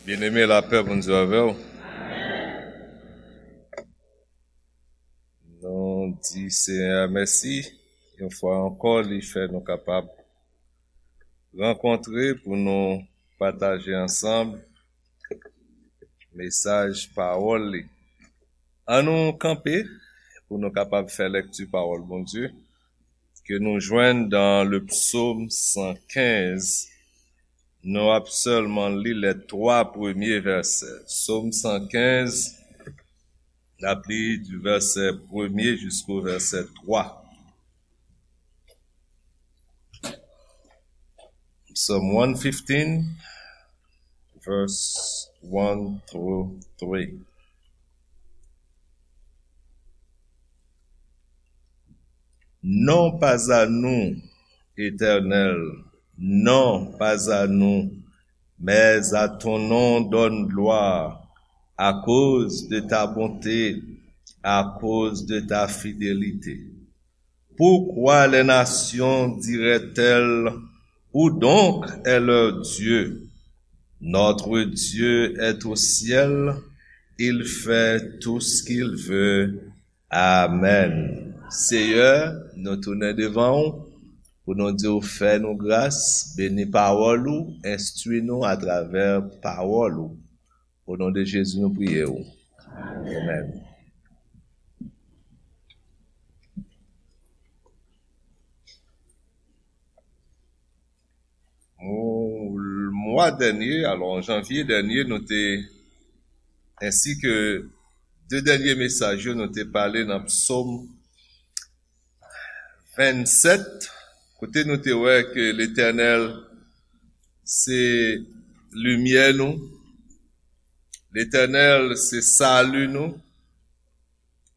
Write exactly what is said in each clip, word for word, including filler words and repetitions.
Byeneme, lapè Bondye avè w. Nou di Senyè a mèsi, yon fwa ankò, li fè nou kapab rankontre pou nou pataje ansanm mesaj pawòl li. An nou kanpe pou nou kapab fè lèkti pawòl Bondye ke nou jwenn dan le psaume cent quinze. Nou ap sèlman li les trois premiers versets. Psaume cent quinze, n ap li du verset premier jusqu'au verset trois. Psalm one fifteen, verse one through three. Non pas à nous, Éternel, non pas à nous, mais à ton nom donne gloire, à cause de ta bonté, à cause de ta fidélité. Pourquoi les nations diraient-elles, où donc est leur Dieu? Notre Dieu est au ciel, il fait tout ce qu'il veut. Amen. Seyè, nou tounen devan w pou nou di w fè nou gras, beni pawòl ou, enstwi nou atravè pawòl ou. O non de Jezi, nou priye w. Amen. Mwa dènye, alò, an janvye dènye, nou te, ensi ke de dènye mesaj yo, nou te pale nan Psaume vingt-sept, kote nou te wè ke Letènèl se limyè nou, Letènèl se sali nou,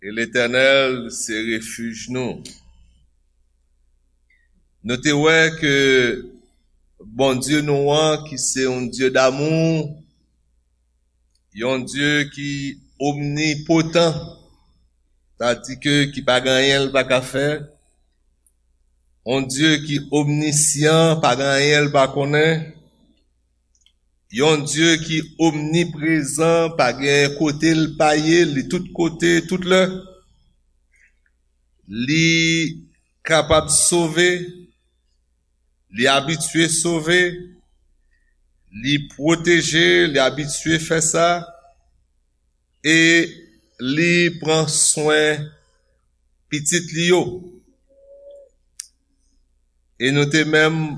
e Letènèl se refij nou. Nou te wè ke Bondye nou an, ki se yon Dye damou, yon Dye ki omnipotan, sa di ke ki pa gen anyen l pa ka fè, yon Dye ki omnisyan, pa gen anyen l pa konnen, yon Dye ki omniprezan, pa gen kote l pa ye, li tout kote, tout lè. Li kapab sove, li abitye sove, li pwoteje, li abitye fè sa, e li pran swen pitit li yo. E nou te menm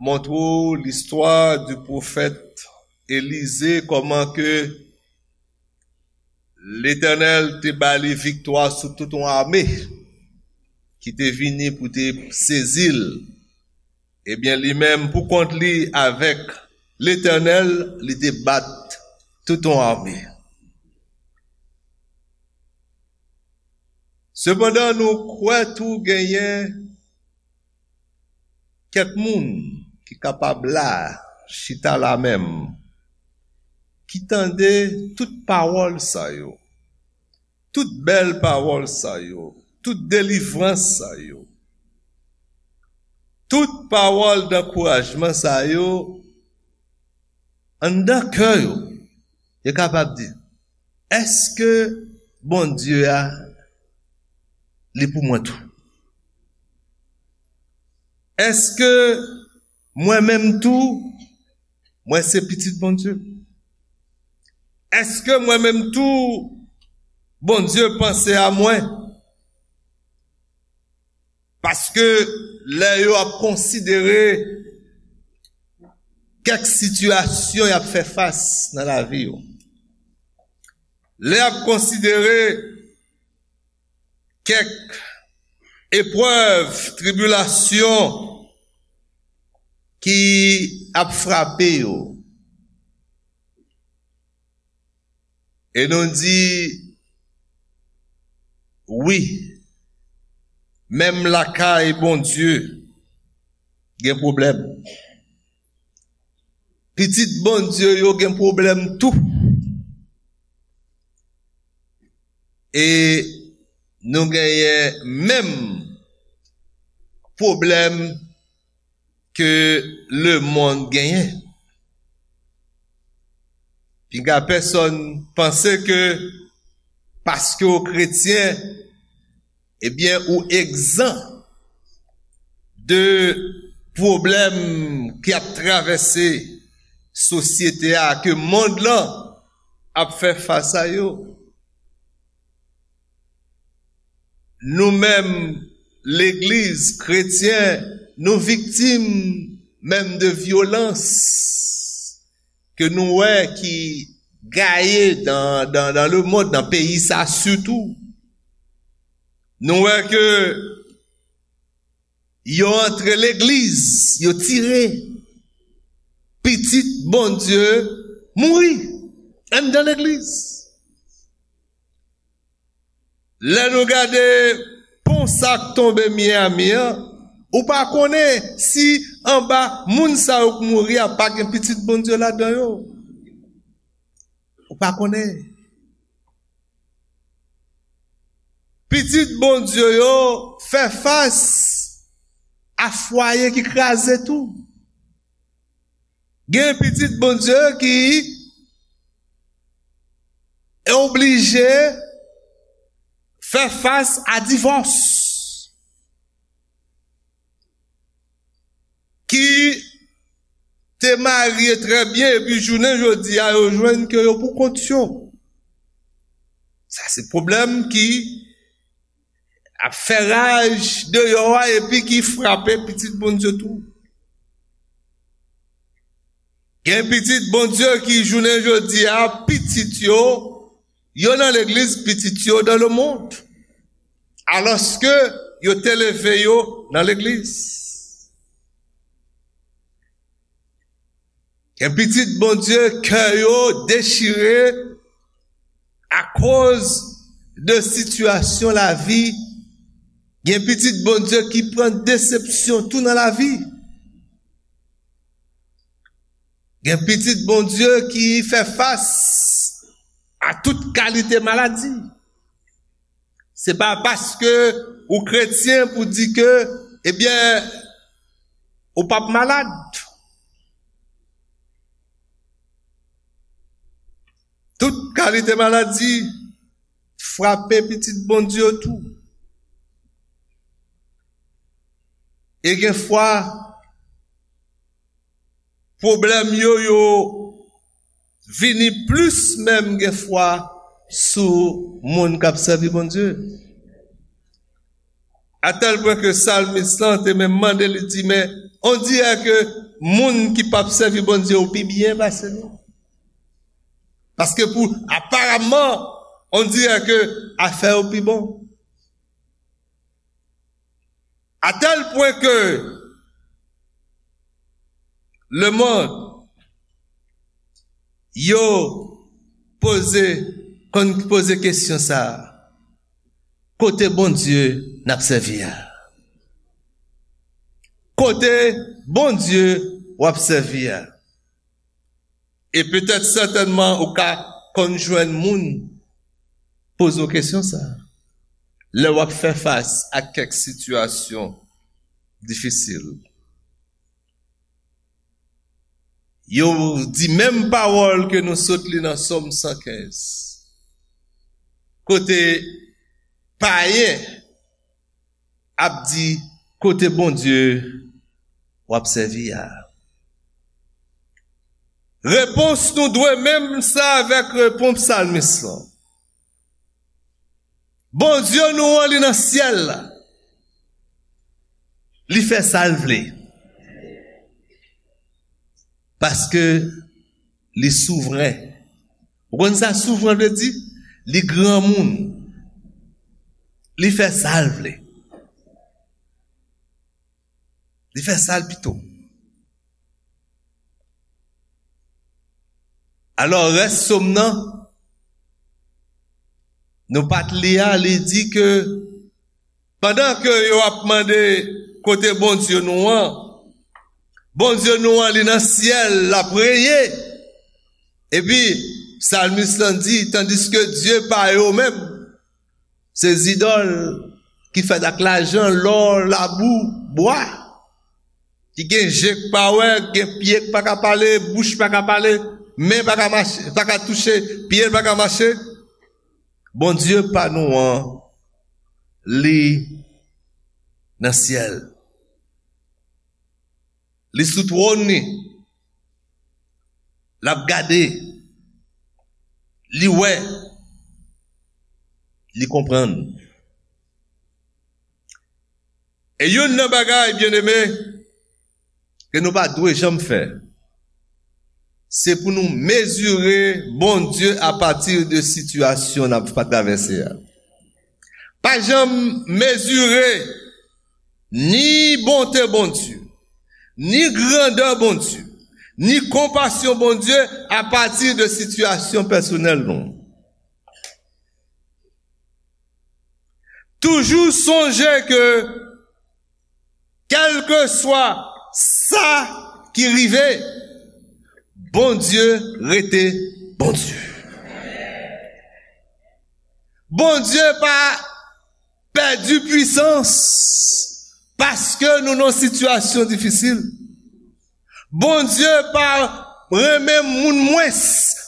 montre w listwa di pwofèt Elize, kòman ke Letènèl te ba li viktwa sou tout yon ame ki te vini pou te sezi l. Ebyen, li menm, pou kont li, avèk Letènèl, li te bat tout yon ame. Sepandan, nou kwè tou genyen kèk moun ki kapab la, chita la menm, ki tande tout pawòl sa yo, tout bèl pawòl sa yo, tout delivrans sa yo, tout pawòl dankourajman sa yo, anndan kè yo, yo kapab di, èske Bondye a, li pou mwen tou? Èske mwen menm tou, mwen se pitit Bondye? Èske mwen menm tou, Bondye panse a mwen? Paske lè yo ap konsidere kèk sitiyasyon y ap fè fas nan lavi yo, lè y ap konsidere kèk eprèv, tribilasyon ki ap frape yo, e nou di, wi, menm lakay Bondye gen pwoblèm. Pitit Bondye yo gen pwoblèm tou. E nou genyen menm pwoblèm ke lemonn genyen. Piga pèsonn panse ke paske w kretyen, ebyen, ou egzan de pwoblèm ki ap travèse sosyete a, ke mond lan ap fè fas a yo. Nou menm, legliz, kretyen, nou viktim menm de vyolans ke nou wè ki gaye dan, dan, dan le mond, nan peyi sa sitou. Nou wè ke yo antre legliz, yo tire pitit Bondye mouri anndan legliz. Lè nou gade pon sa k tonbe Miami an, ou pa konnen si anba moun sa yo k mouri a pa gen pitit Bondye ladan yo. Ou pa konnen. Pitit Bondye yo fè fas a fwaye ki kraze tou. Gen pitit Bondye ki oblije fè fas a divòs, ki te marye trè byen, epi jounen jodi a, yo jwenn ke yo pou kont yo. Sa se pwoblèm ki ap fè raj deyò a, epi ki frape pitit Bondye tou. Gen pitit Bondye ki, jounen jodi a, pitit yo, yo nan legliz, pitit yo dans le monde. Alòske yo te leve yo nan legliz. Gen pitit Bondye, kè yo dechire akoz de sitiyasyon lavi. Gen pitit Bondye ki pran desepsyon tou nan lavi. Gen pitit Bondye ki fè fas a tout kalite maladi. Se pa paske ou kretyen pou di ke, ebyen, ou p ap malad. Tout kalite maladi frape pitit Bondye yo tou. E gen fwa, pwoblèm yo, yo vini plis menm gen fwa sou moun k ap sèvi Bondye. Atèl pwen ke salmis lan te menm mande, li di, men, on dirè ke moun ki p ap sèvi Bondye yo pi byen pase nou. Paske pou, aparamman, on dirè ke afè yo pi bon. Atèl pwen ke lemonn yo poze, konn poze kesyon sa a, kote Bondye n ap sèvi a? Kote Bondye w ap sèvi a? E petèt sètènman ou ka konn jwenn moun poze w kesyon sa a lè w ap fè fas ak kèk sitiyasyon difisil. Yo di menm pawòl ke nou sot li nan Sòm san kenz, kote payen ap di, kote Bondye w ap sèvi a? Repons nou dwe menm sa avèk repons salmis lan. Bondye nou an, li nan syèl la. Li fè sa l vle. Paske li souvren. Ou konn sa souvren vle di? Li granmoun. Li fè sa l vle. Li fè sa l pito. Alò, rès sòm nan, nou pa t li a, li di ke pandan ke yo ap mande kote Bondye nou an, Bondye nou an, li nan syèl, l ap renye. Epi, salmis lan di, tandiske dye pa yo menm, se zidòl ki fèt ak lajan, lò, labou, bwa, ki gen je k pa wè, gen pye k pa ka pale, bouch pa ka pale, men pa ka mache, pa ka touche, pye l pa ka mache. Bondye pa nou an, li nan syèl. Li sou twòn li. L ap gade. Li wè. Li konprann. E youn nan bagay, byeneme, ke nou pa dwe janm fè, se pou nou mezire Bondye apati de sitiyasyon n ap travèse a. Pa janm mezire ni bonte Bondye, ni grandè Bondye, ni konpasyon Bondye apati de sitiyasyon pèsonèl nou. Toujou sonje ke, kèlkeswa sa ki rive, Bondye rete Bondye. Bondye pa pèdi pwisans paske nou nan sitiyasyon difisil. Bondye pa renmen moun mwens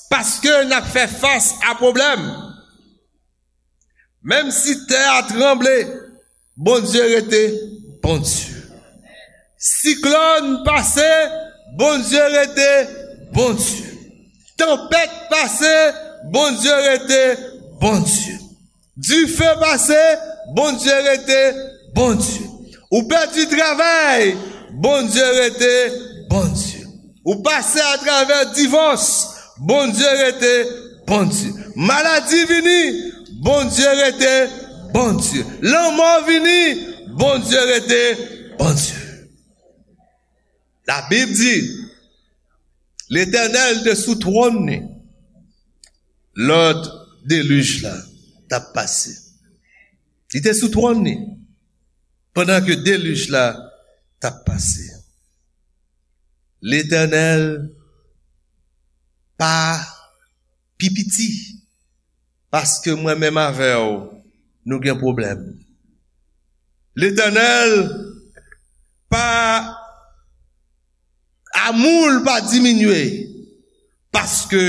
paske n ap fè fas a pwoblèm. Menm si tè a tranble, Bondye rete Bondye. Siklòn pase, Bondye rete Bondye. Tanpèt pase, Bondye rete Bondye. Dife pase, Bondye rete Bondye. Ou pèdi travay, Bondye rete Bondye. Ou pase atravè divòs, Bondye rete Bondye. Maladi vini, Bondye rete Bondye. Lanmò vini, Bondye rete Bondye. Labib di, Letènèl te sou twòn li lè delij la t ap pase. Li te sou twòn li pandan ke delij la t ap pase. Letènèl pa pi piti, paske mwen menm avè w, nou gen pwoblèm. Letènèl pa, amou l pa diminye, paske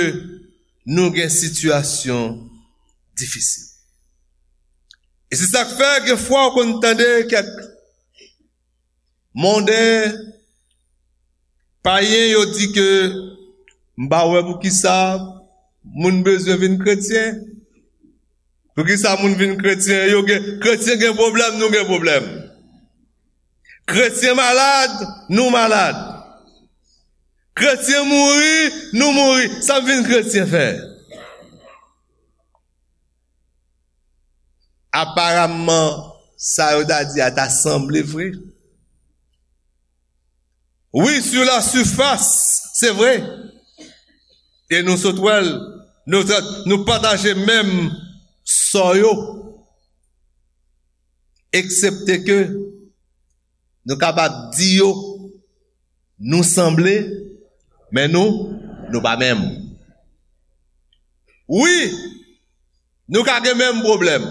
nou gen sitiyasyon difisil. E se sa k fè, gen fwa w konn tande kèk monden, payen, yo di ke, "M pa wè poukisa moun bezwen vin kretyen. Poukisa moun vin kretyen? Yo gen, kretyen gen pwoblèm, nou gen pwoblèm. Kretyen malad, nou malad. Kretyen mouri, nou mouri. Sa m vin kretyen fè?" Aparamman, sa yo ta di a ta sanble vre. Wi, sur la surface, se vre. E nou sot wè l, nou, nou pataje menm sò yo. Eksepte ke nou kapab di yo, nou sanble, men nou, nou pa menm. Wi, nou ka gen menm pwoblèm.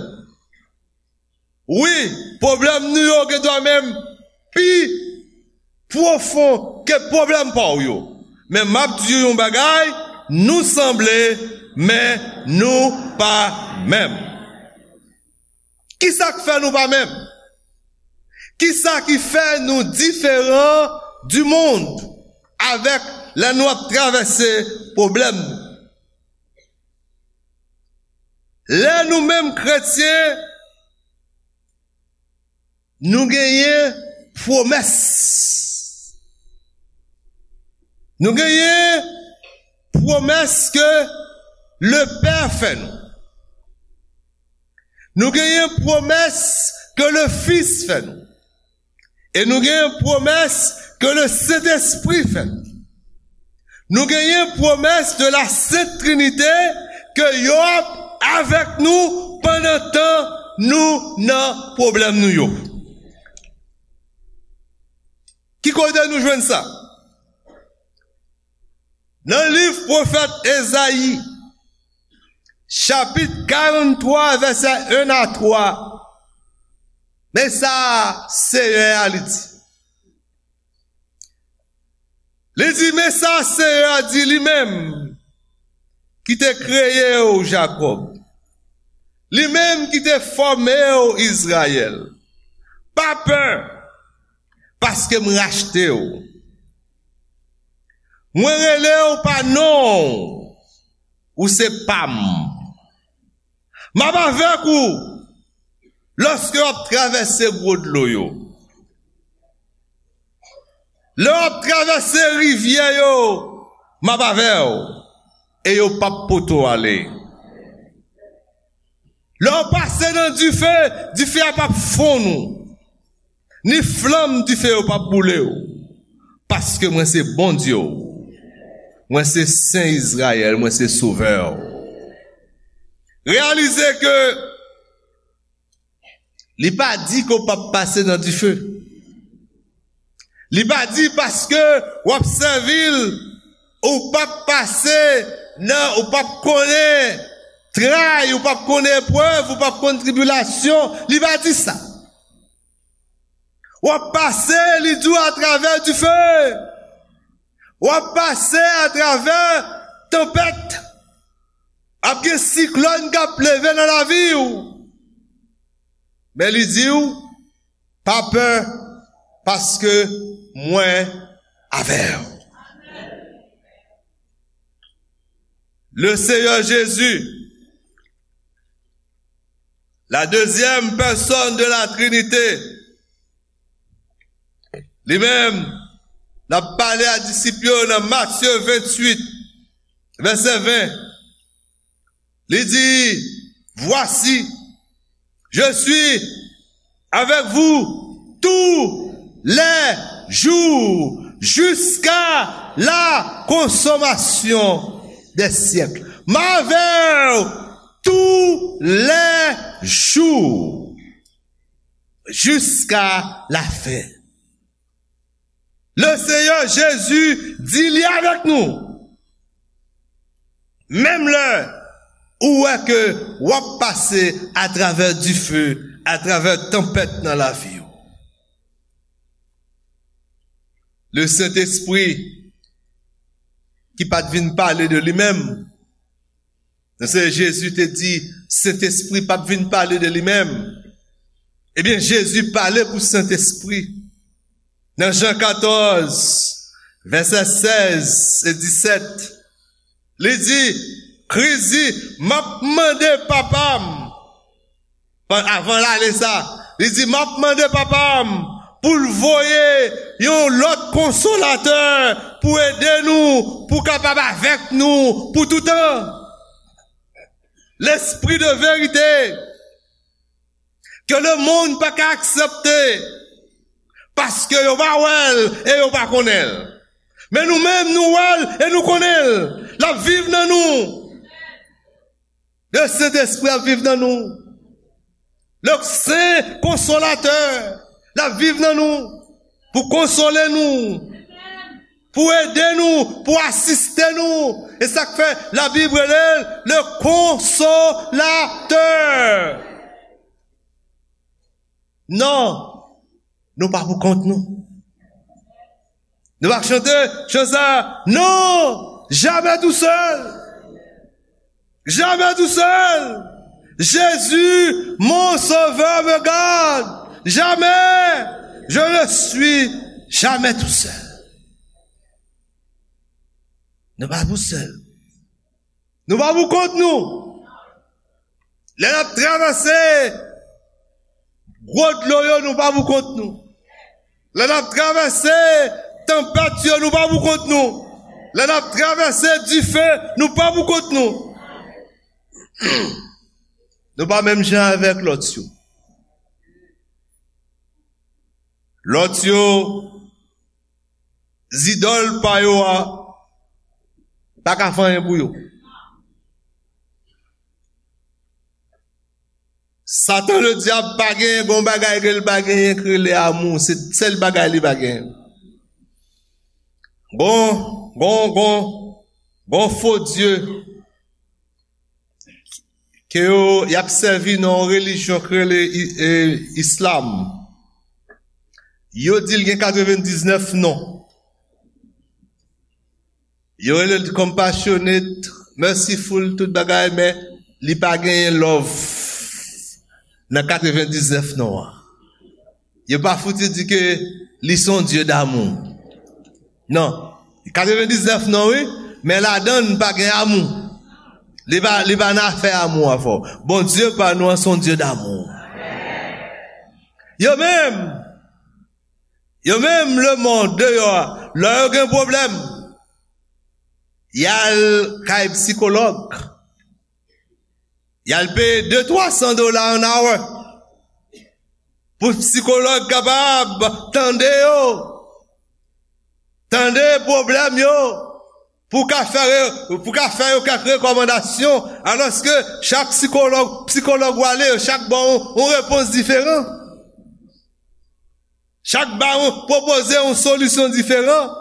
Wi, pwoblèm nou yo gendwa menm pi pwofon ke pwoblèm pa w yo. Men m ap di w yon bagay, nou sanble, men nou pa menm. Kisa k fè nou pa menm? Kisa ki fè nou diferan du monde avèk lè nou ap travèse pwoblèm nou? Lè nou menm kretyen, nou genyen pwomès. Nou genyen pwomès ke Lepè fè nou. Nou genyen pwomès ke Lefis fè nou. E nou genyen pwomès ke Lesentespri fè nou. Nou genyen pwomès de la Sent Trinite ke yo ap avèk nou pandan tan nou nan pwoblèm nou yo. Ki kote nou jwenn sa? Nan liv pwofèt Ezayi, chapit karanntwa, vèsè en a twa, men sa Seyè a li di. Li di, men sa Seyè a di li menm, ki te kreye w, Jakòb, li menm ki te fòme w, Izrayèl. Pa pè, paske m rachte w. Mwen rele w pa non w, ou se pa m. M ap avèk ou lòske w ap travèse gwo dlo yo. Lè w ap travèse rivyè yo, m ap avè w, e yo p ap pote w ale. Lè w pase nan dife, dife a p ap fonn ou, ni flanm dife yo p ap boule w. Paske mwen se Bondye w. Mwen se Sen Izrayèl, mwen se Sovè w. Reyalize ke li pa di ke w p ap pase nan dife. Li pa di paske w ap sèvi l, ou p ap pase nan, ou p ap konnen tray, ou p ap konnen eprèv, ou p ap konn tribilasyon. Li pa di sa. W ap pase, li di w, atravè dife. W ap pase atravè tanpèt. Ap gen siklòn k ap leve nan lavi w. Men li di w, pa pè, paske mwen avè w. Le Seigneur Jésus, la deuxième personne de la Trinité, li menm, l ap pale a disip yo nan Matye venntuit, vèsè ven. Li di, voici, je suis avec vous tous les jours jusqu'à la consommation des siècles. M avè w tou lè jou jiska lafen. Le Seigneur Jésus di li avèk nou. Menm lè ou wè ke w ap pase atravè dife, atravè tanpèt nan lavi w. Le Sentespri ki pa t vin pale de li menm, nan se Jezi te di, Sentespri p ap vin pale de li menm. Ebyen, Jezi pale pou Sentespri. Nan Jan katòz, vèsè sèz e disèt, li di, Kris di, m ap mande Papa m, avan l ale sa, li di, m ap mande Papa m pou l voye yon lòt konsolatè pou ede nou, pou kapab avèk nou pou toutan. Lespri de verite, ke lemonn pa ka aksepte, paske yo pa wè l e yo pa konnen l. Men nou menm, nou wè l e nou konnen l. L ap viv nan nou. Le Sentespri ap viv nan nou. Le Sen Konsolatè, l ap viv nan nou pou konsole nou, pou ede nou, pou asiste nou. E sa k fè Labib rele l le Konsolatè. Non, nou pa pou kont nou. Nou pa chante chan sa, non, jamais tout seul. Jamais tout seul. Jésus, mon sauveur, me garde. Jamais, je ne suis jamais tout seul. Nou pa pou sèl. Nou pa pou kont nou. Lè n ap travèse gwo dlo yo, nou pa pou kont nou. Lè n ap travèse tanpèt yo, nou pa pou kont nou. Lè n ap travèse dife, nou pa pou kont nou. Nou pa menm jan avèk lòt yo. Lòt yo, zidòl pa yo a pa ka fè anyen pou yo. Satan Ledyab pa genyen gon bagay ke l pa genyen k rele amou. Se sèl bagay li pa genyen. Gon, gon, gon, gon fo dye ke yo, y ap sèvi nan yon relijyon k rele i-, e, islam. Yo di l gen katrevendiznèf non. Yo rele l compassionate merciful, tout bagay, men li pa genyen love nan katrevendiznèf non an. Yo pa fouti di ke li se yon Dye damou. Non. Katrevendiznèf non, wi, men ladan l pa gen amou. Li pa, li pa nan afè amou an fò. Bondye pa nou an se yon Dye damou. Yo menm, yo menm, lemonn deyò a, lè yo gen pwoblèm, y al kay sikològ. Y al peye de twa san dola an hour pou sikològ kapab tande yo, tande pwoblèm yo, pou ka fè, pou ka fè yo kèk rekòmandasyon, alòske chak sikològ, sikològ w ale, yo chak ba w yon, yon repons diferan. Chak ba w, pwopoze yon solisyon diferan.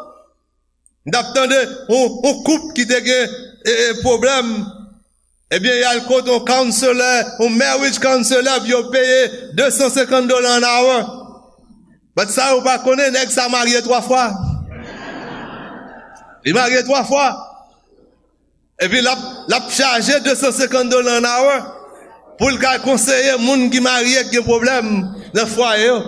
M t ap tande yon, yon koup ki te gen, e, e, pwoblèm. Ebyen, y al kote yon counselor, yon marriage counselor, epi yo peye de san senkant dola an hour. But sa yo pa konnen, nèg sa marye twa fwa. Li marye twa fwa. Epi l ap, l ap chaje de san senkant dola an hour pou l ka konseye moun ki marye, ki gen pwoblèm nan fwaye yo.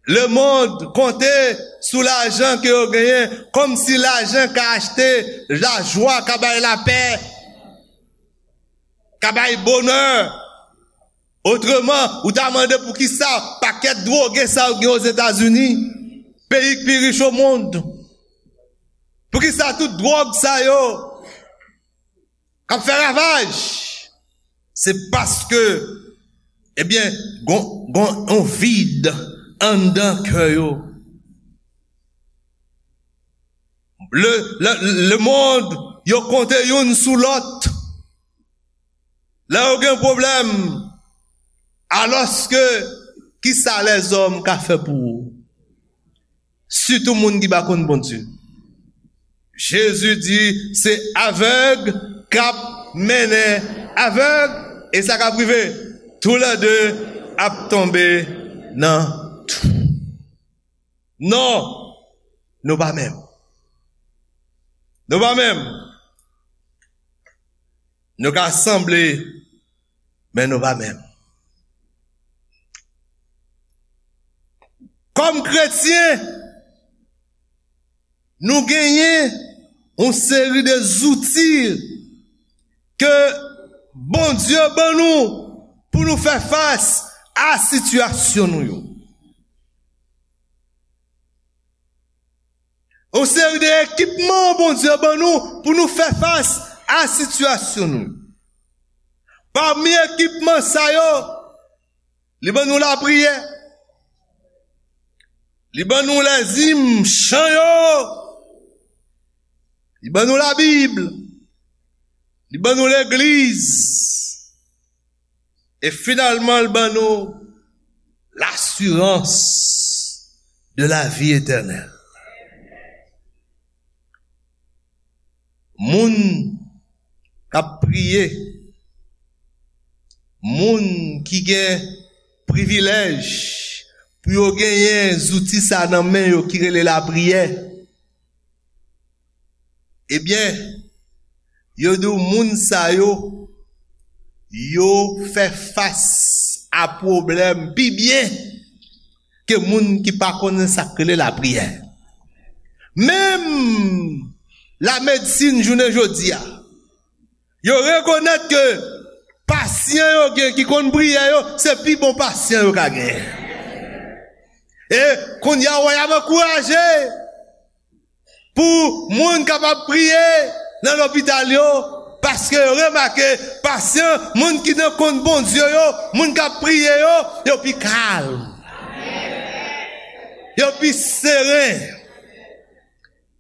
Lemonn konte sou lajan ke yo genyen, kòmsi lajan ka achte lajwa, ka bay lapè, ka bay bonè. Otreman, ou ta mande poukisa pakèt dwoge sa yo gen Ozetazini, peyi k pi rich o mond. Poukisa tout dwòg sa yo k ap fè ravaj? Se paske, ebyen, gon, gon yon vid anndan kè yo. Le, le, lemonn, yo konte youn sou lòt. Lè yo gen pwoblèm, alòske, kisa lèzòm ka fè pou ou? Sitou moun ki pa konn Bondye. Jezi di, se avèg k ap mennen avèg, e sa k ap rive, toulède ap tonbe nan twou. Non, nou pa menm. Nou pa menm. Nou ka sanble, men nou pa menm. Kòm kretyen, nou genyen yon seri de zouti ke Bondye ban nou pou nou fè fas a sitiyasyon nou yo. Yon seri de ekipman Bondye ban nou pou nou fè fas a sitiyasyon nou. Pami ekipman sa yo, li ban nou lapriyè, li ban nou lèzim, chan yo, li ban nou Labib, li ban nou legliz, e finalman, l ban nou lasirans de la vi etènèl. Moun k ap priye, moun ki gen privilèj pou yo genyen zouti sa nan men yo ki rele lapriyè, ebyen, yo di w moun sa yo, yo fè fas a pwoblèm pi byen ke moun ki pa konnen sa k rele lapriyè. Menm lamedsin jounen jodi a, yo rekonèt ke pasyan yo gen ki konn priye yo, se pi bon pasyan yo ka genyen. E kounye a, w ap ankouraje pou moun kapab priye nan lopital yo, paske yo remake pasyan, moun ki nan konn Bondye yo, moun k ap priye yo, yo pi kalm. Yo pi seren.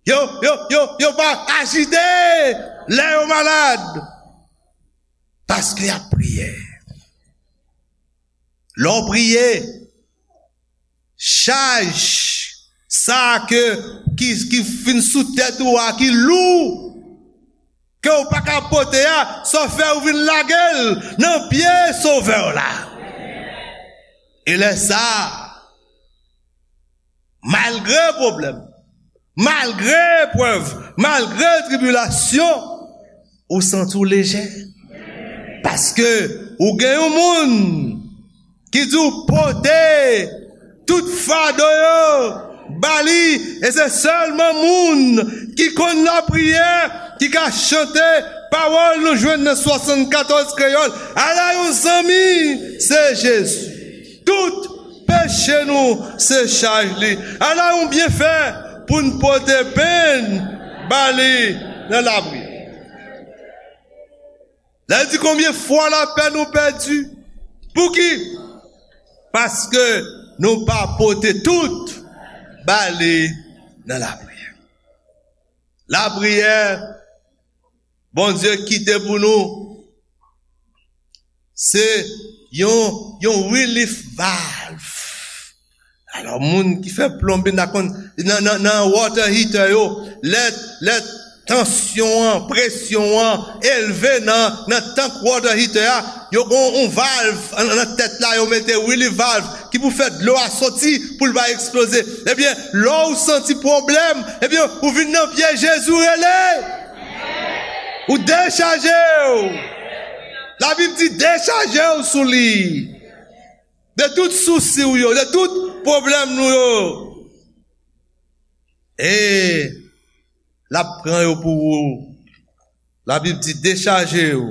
Yo, yo, yo, yo pa ajite lè yo malad. Paske y ap priye. Lè w priye, chaj sa ke, ki, ki fin sou tèt ou a, ki lou, ke w pa ka pote a, sa w fè, ou vin lage l nan pye Sovè w la. E lè sa a, malgre pwoblèm, Malgre eprèv, malgre tribilasyon, ou santi w lejè. Paske ou gen yon moun ki di w pote tout fado yo ba li, e se sèlman moun ki konn lapriyè ki ka chante pawòl nou jwenn nan swasannkatòz kreyòl. Ala yon zanmi, se Jezi. Tout peche nou se chaj li. Ala yon byenfè pou n pote penn ba li nan lapriyè. Lè l di konbyen fwa lapè nou pèdi. Pouki? Paske nou pa pote tout ba li nan lapriyè. Lapriyè, Bondye kite pou nou, se yon, yon relief valve. Alò, moun ki fè plonbin, ta konn, nan, nan, nan water heater yo, lè, lè tansyon an, presyon an elve nan, nan tank water heater a, yo gon yon valv nan, nan tèt la, yo mete relief valve ki pou fè dlo a soti pou l pa eksploze. Ebyen, lè w santi pwoblèm, ebyen, ou vin nan pye Jezi, ou rele. Ou dechaje w. Labib di dechaje w sou li. De tout sousi w yo, de tout pwoblèm nou yo. E l ap pran yo pou ou. Labib di dechaje w.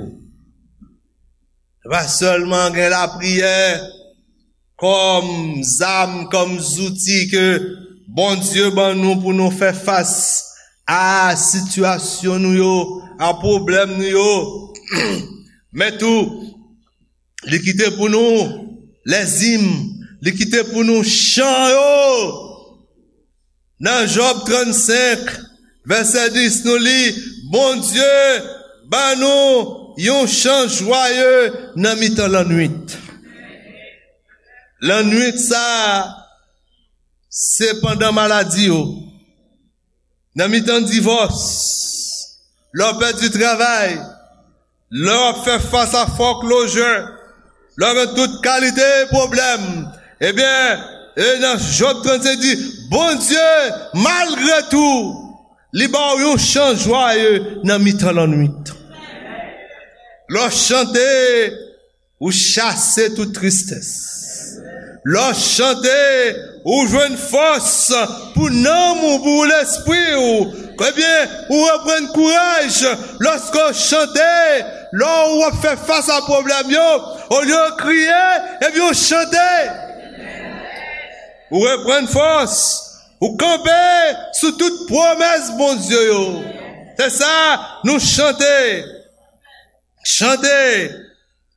Se pa sèlman gen lapriyè kòm zam, kòm zouti ke Bondye ban nou pou nou fè fas a sitiyasyon nou yo, a pwoblèm nou yo. Men tou, li kite pou nou lèzim, li kite pou nou chan yo. Nan Jòb trannsenk, vèsè dis, nou li, Bondye ban nou yon chan jwaye nan mitan lannwit. Lannwit sa a, se pandan maladi yo, nan mitan divòs, lè w pèdi travay, lè w ap fè fas a fòklojè, lè w gen tout kalite pwoblèm, ebyen, e nan Jòb trannsenk di, Bondye, malgre tou, li ba w yon chan jwaye nan mitan lannwit. Lè w chante, ou chase tout tristès. Lè w chante, ou jwenn fòs pou nanm ou, pou lespri w. Ebyen, ou reprann kouraj lòske w chante. Lè w ap fè fas a pwoblèm yo, olye w kriye, ebyen, w chante. Ou reprann fòs. Ou kanpe sou tout pwomès Bondye yo. Se sa, nou chante. Chante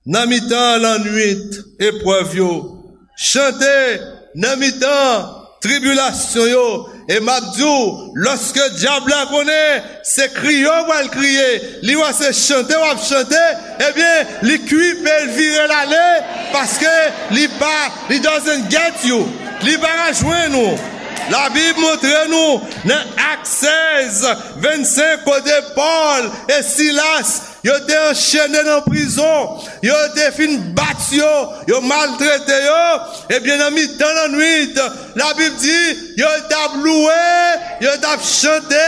nan mitan lannwit eprèv yo. Chante nan mitan tribilasyon yo. E m ap di w, lòske dyab la konnen se kriye w pral kriye, li wè se chante w ap chante, ebyen, li kwipe, l vire l ale, paske li pa, li doesn't get you. Li pa ka jwenn ou. Labib montre nou nan Ak sèz, vennsenk, kote Pòl e Silas yo te anchene nan prizon, yo te fin bat yo, yo maltrete yo, ebyen, nan mitan lannwit, Labib di, yo t ap louwe, yo t ap chante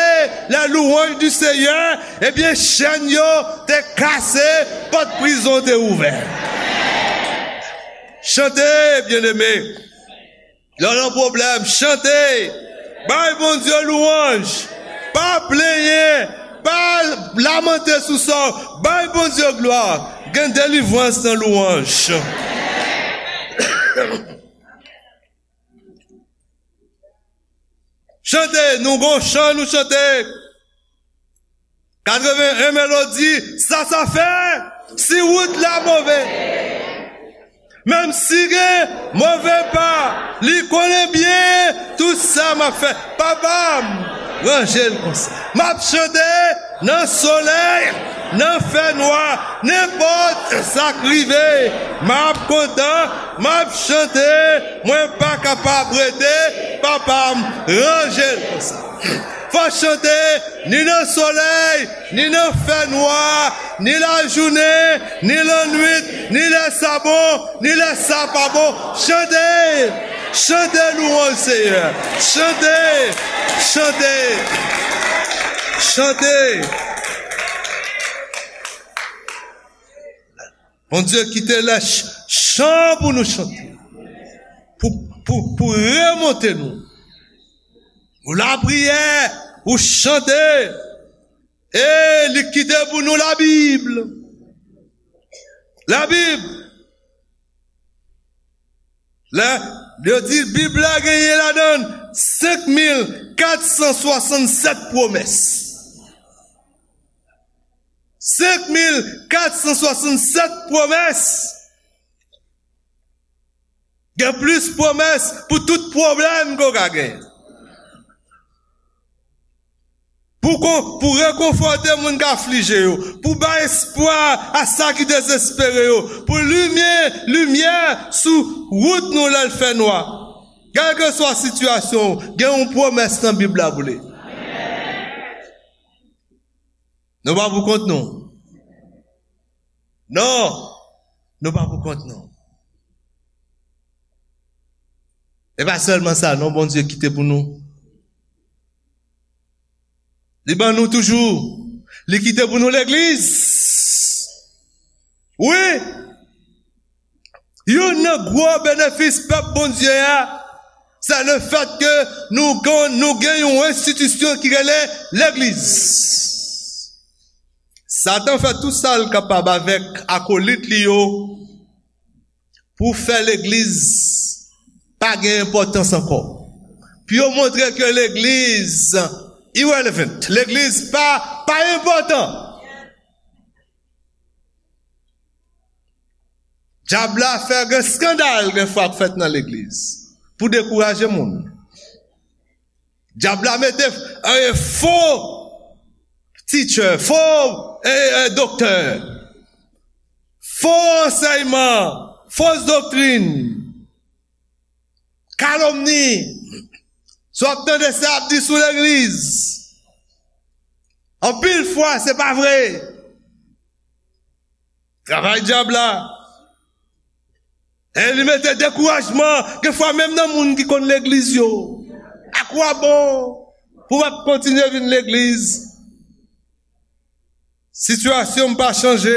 les louanges du Seigneur, ebyen, chèn yo te kase, pòt prizon te ouvè. Chante, byeneme. Lè w nan pwoblèm, chante. Bay Bondye lwanj. Pa plenyen. Pa lamante sou sa w. Bay Bondye glwa. Gen delivrans nan lwanj. Chante, nou gon chan nou chante. Katreven en melodi, sa sa fè, si wout la move. Menm si gen move pa, li konnen byen tout sa m ap fè. Papa m, ranje l konsa. M ap chante nan solèy, nan fènwa, nenpòt sa k rive. M ap kontan, m ap chante, mwen pa kapab rete. Papa m, ranje l konsa. Fò chante, ni nan solèy, ni nan fènwa, ni lajounen, ni lannwit, ni lè sa bon, ni lè sa pa bon. Chante, chante louwanj Seyè. Chante, Chante! Chante! Bondye kite lè ch-, chan pou nou chante. Pou, pou, pou remonte nou. Ou lapriyè, ou chante. E li kite pou nou Labib. Labib. Lè yo di Bib la genyen ladan senk mil kat san swasannsèt pwomès. Senk mil kat san swasannsèt pwomès. Gen plis pwomès pou tout pwoblèm ke w ka gen. Pou kon-, pou rekonfòte moun k aflije yo, pou bay espwa a sa ki dezespere yo, pou limyè, limyè sou wout nou lè l fè nwa. Kèlkeswa sitiyasyon w, gen yon pwomès nan Bib la pou li. Nou pa pou kont nou. Non, nou pa pou kont nou. E pa sèlman sa, non, Bondye kite pou nou. Li ban nou toujou. Li kite pou nou legliz. Wi. Youn nan gwo benefis pèp Bondye a, se le fèt ke nou kon-, nou gen yon enstitisyon ki rele legliz. Satan fè tou sa l kapab avèk akolit li yo pou fè legliz pa gen enpòtans ankò. Pou yo montre ke legliz irrelevant, legliz pa, pa enpòtan. Dyab la fè gen eskandal gen fwa k fèt nan legliz pou dekouraje moun. Dyab la mete, eh, fo teacher, fo, eh, eh, doktè, fo ansèyman, fos doktrin, kalomni. Si w ap tande sa y ap di sou legliz, anpil fwa se pa vre. Travay dyab la. E li mete dekourajman, gen fwa menm nan moun ki konn legliz yo. Akwabon pou w ap kontinye vin legliz? Sitiyasyon m pa chanje.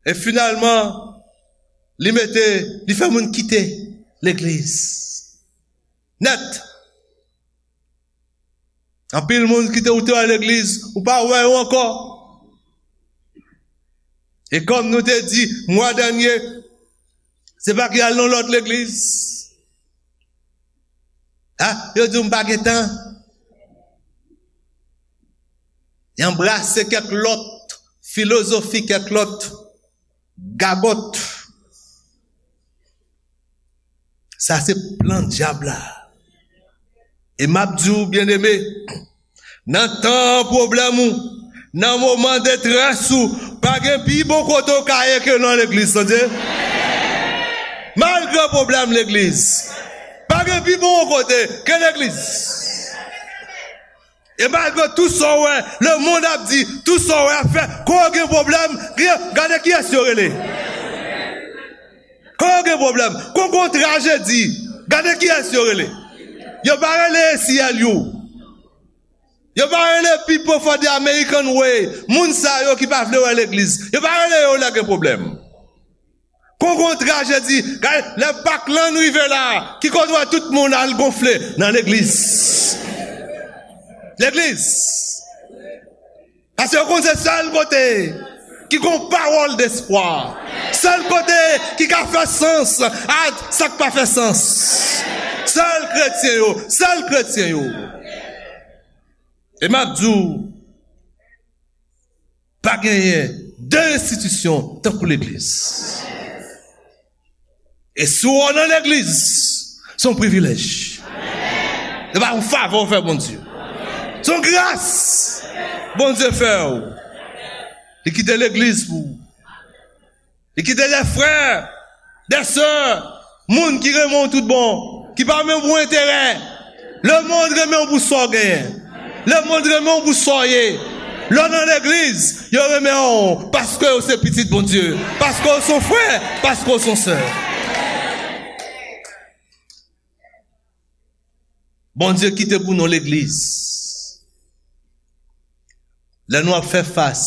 E finalman, li mete, li fè moun kite legliz. Nèt. Anpil moun ki te, ou te wè legliz, ou pa wè yo ankò. E kòm nou te di mwa dènye, se pa ki al nan lòt legliz. Ah, yo di w m pa gen tan. Y anbrase kèk lòt filozofi, kèk lòt gagòt. Sa se plan dyab la. E m ap di w, byeneme, nan tan pwoblèm ou, nan moman detrès ou, pa gen pi bon kote w ka ye ke nan legliz, tande. Malgre pwoblèm legliz, pa gen pi bon kote ke legliz. E malgre tout sa w wè lemonn ap di, tout sa w wè ap fè, kon gen pwoblèm, gen, gade kiyès yo rele. Kon gen pwoblèm, kon gon trajedi, gade kiyès yo rele. Yo pa rele A C L U. Yo pa rele People for the American Way. Moun sa yo ki pa vle wè legliz. Yo pa rele yo lè gen pwoblèm. Kon gon trajedi, gade, lè Pak lan rive la, ki kote w wè tout moun al gonfle nan legliz. Legliz. Paske yo konn se sèl kote ki gon pawòl despwa. Sèl kote ki ka fè sans a sa k pa fè sans. Sèl kretyen yo, sèl kretyen yo. E m ap di w, pa genyen de enstitisyon tankou legliz. E si w nan legliz, se yon privilèj. Se pa yon favè w fè Bondye. Se yon gras Bondye fè w. Li kite legliz pou ou. Li kite de frè, de sè, moun ki renmen w tout bon, ki pa renmen w pou enterè. Lemonn renmen w pou sa w genyen. Lemonn renmen w pou sa w ye. Lè w nan legliz, yo renmen w paske w se pitit Bondye, paske w se yon frè, paske w se yon sè. Bondye kite pou nou legliz. Lè nou ap fè fas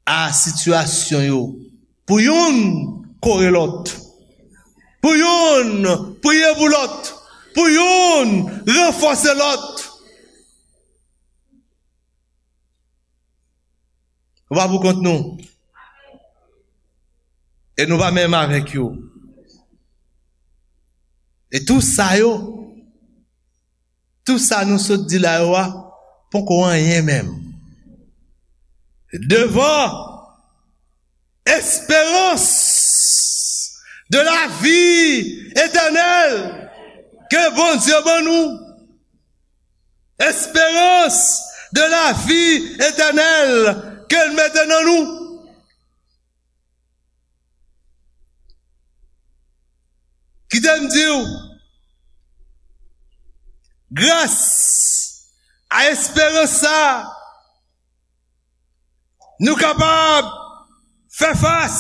a sitiyasyon yo, pou youn kore lòt, pou youn priye pou lòt, pou youn ranfòse lòt. Nou pa pou kont nou. E nou pa menm avèk yo. E tou sa yo, tou sa nou sot di la yo a, poko anyen menm. Devan esperans de la vi etènèl ke Bondye ban nou. Esperans de la vi etènèl ke l mete nan nou. Kite m di w, gras a esperans sa, nou kapab fè fas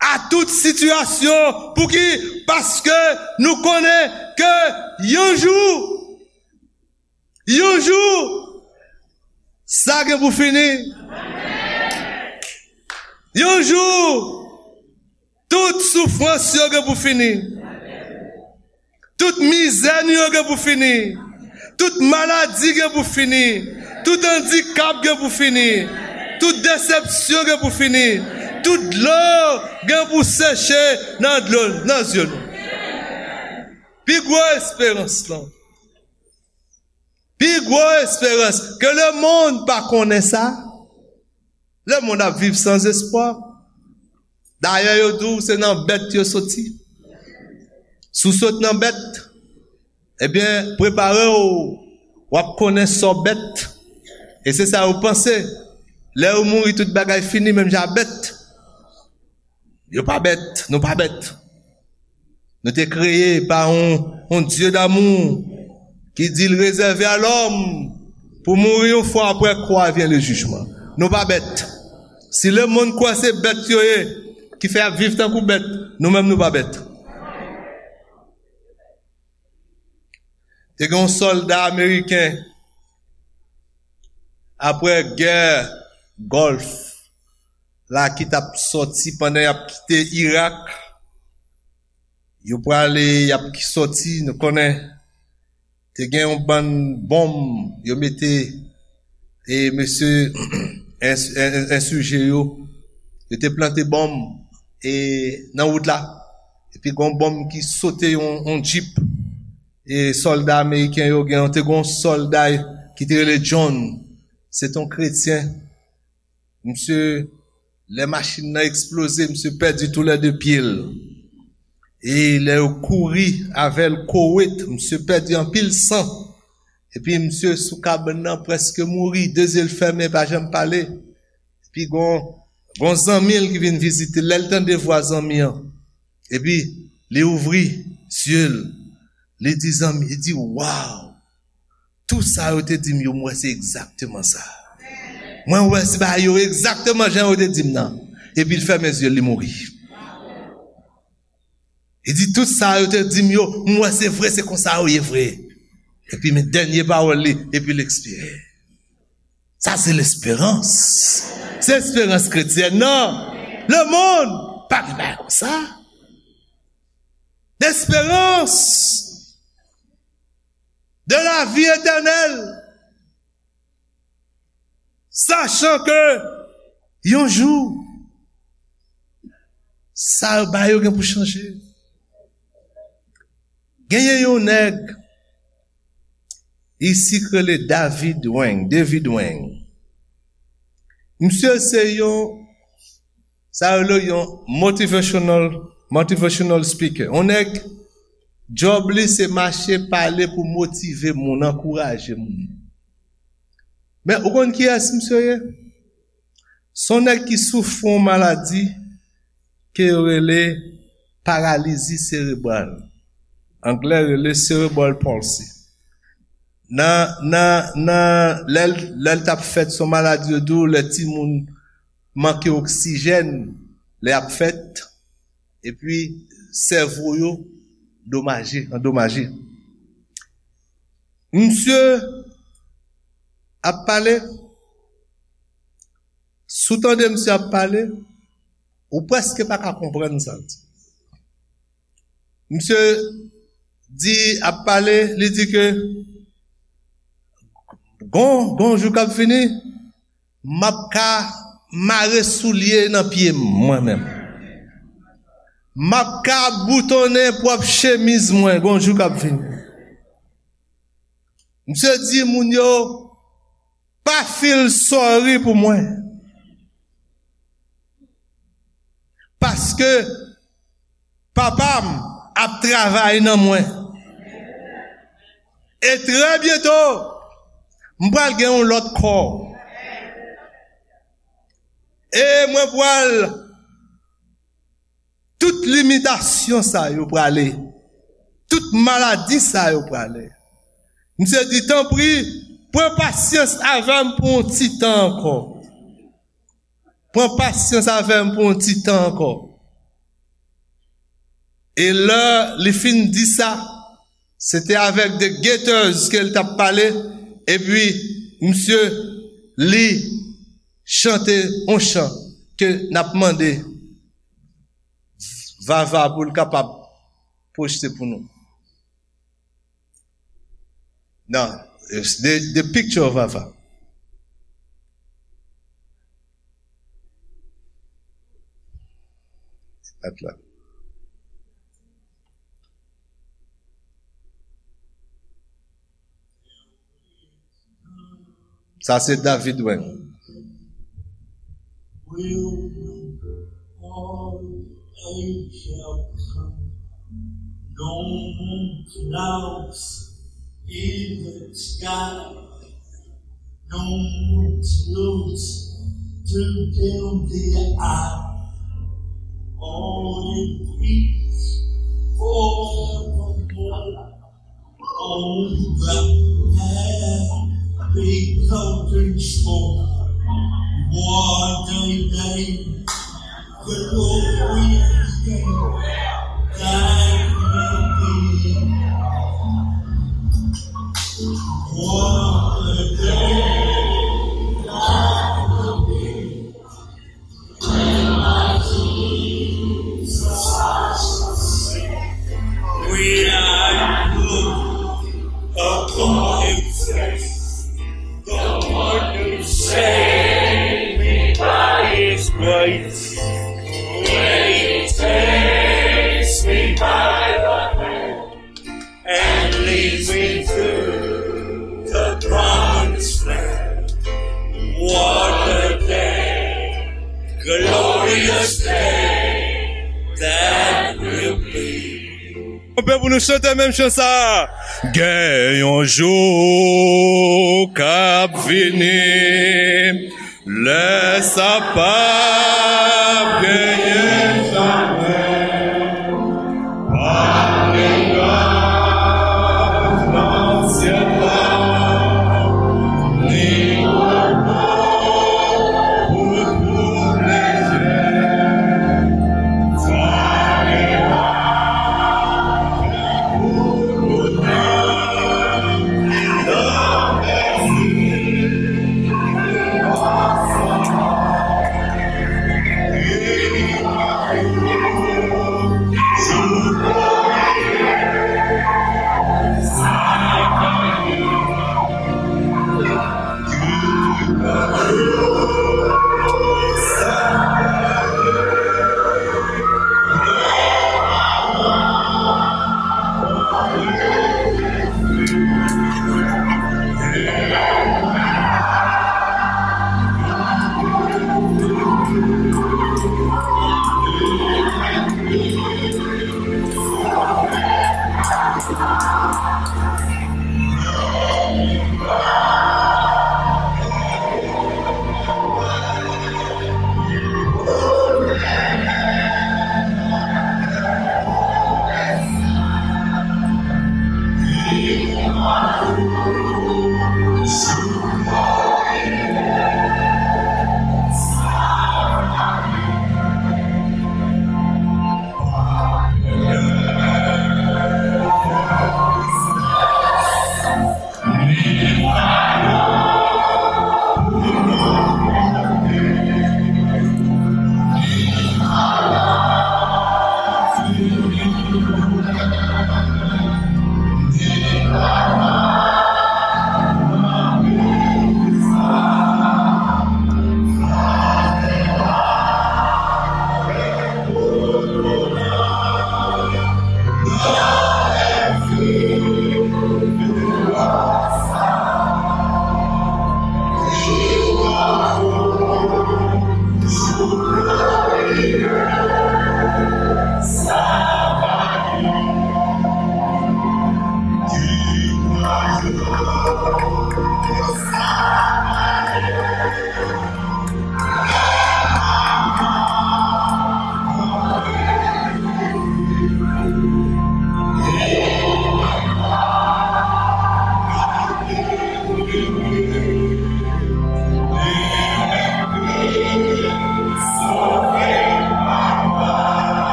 a tout sitiyasyon. Pouki? Paske nou konnen ke yon jou, yon jou, sa gen pou fini. Yon jou, tout soufrans yo gen pou fini. Tout mizè nou yo gen pou fini. Tout maladi gen pou fini. Tout andikap gen pou fini. Tout desepsyon gen pou fini. Tout dlo gen pou seche nan dlo, nan zye nou. Pi gwo esperans lan. Pi gwo esperans ke lemonn pa konnen sa. Lemonn ap viv san espwa. Dayè, yo di w se nan bèt yo soti. Si w sot nan bèt, ebyen, prepare w, w ap konnen sa w bèt. E se sa yo panse. Lè yo mouri, tout bagay fini, menm jan a bèt. Yo pa bèt, nou pa bèt. Nou te kreye pa yon, yon Dye damou ki di l rezève a lòm pou mouri yon fwa, apre kwa vyen le jijman. Nou pa bèt. Si lemonn kwè se bèt yo ye, ki fè y ap viv tankou bèt, nou menm nou pa bèt. Te gen yon sòlda ameriken, apre gè Gòlf la ki t ap sòti pandan y ap kite Irak. Yo prale, y ap ki sòti, nou konnen te gen yon bann bonm yo mete, e mesye ensije yo, yo te plante bonm e nan wout la. Epi gen yon bonm ki sote yon, yon djip e sòlda ameriken yo, gen te gen yon sòlda ki te rele John. Se te yon kretyen. Misye, lè machin nan eksploze, misye pèdi toulède pye l. E lè yo kouri avè l Kowet, misye pèdi anpil san. Epi misye sou kabann nan prèske mouri, de zye l fèmen, pa janm pale. Epi gon, gon zanmi l ki vin vizite l, lè l tande vwa zanmi an, epi li ouvri zye l, li di zanmi, li di, waw, tout sa yo te di m yo, m wè se egzakteman sa. Mwen wè se bagay yo egzakteman jan yo te di m nan. Epi l fèmen zye l, li mouri. Li di, tout sa yo te di m yo, m wè se vre, se konsa yo ye vre. Epi men dènye pawòl li, epi l ekspire. Sa se lesperans. Se esperans kretyèn nan. Lemonn pa gen bagay konsa. Lesperans de la vi etènèl. Sachan ke yon jou, sa yo ba yo gen pou chanje. Genyen yon nèg isi k rele David Wang, David Wang. Misye se yon, sa yo rele yon motivational, motivational speaker. Yon nèg, djòb li se mache pale pou motive moun, ankouraje moun. Men ou konn kiyès misye ye? Se yon nèg ki soufri yon maladi ke yo rele paralizi serebral. Anglè rele cerebral palsy. Nan, nan, nan, lè l, lè l t ap fèt, se yon maladi yo di w, lè timoun manke oksijèn, lè y ap fèt, epi sèvo yo domaje, andomaje. Misye ap pale, si w tande misye ap pale, ou prèske pa ka konprann sa l di. Misye di, ap pale, li di ke gon, gon jou k ap vini, m ap ka mare soulye nan pye m, mwen menm. M ap ka boutonnen pwòp chemiz mwen, gon jou k ap vini. Misye di moun yo, pa feel sorry pou mwen. Paske papa m ap travay nan mwen. E trè byento, m pral gen yon lòt kò. E mwen pral, tout limitasyon sa yo prale. Tout maladi sa yo prale. Misye di, tanpri, pran pasyans avè m pou yon ti tan ankò. Pran pasyans avè m pou yon ti tan ankò. E lè li fin di sa, se te avèk The Gaithers ke l t ap pale, epi misye li chante yon chan ke n ap mande Vava pou l kapab pwojte pou nou. Non, the, the picture of Vava. At la. Sa se David Weng. Will all age shall come. No more clouds in the sky. No more tears to dim the eye. All in peace forevermore. On the happy golden shore, what a day, glorious day that will be. What a day that will be. When I look upon his face, the one who saved me by his grace, when he takes me by the hand and leads me to the promised land. What a day, glorious day that will be. Konbyen pou nou chante menm chan sa? Gen yon jou k ap vini, lè sa p ap genyen chanjman.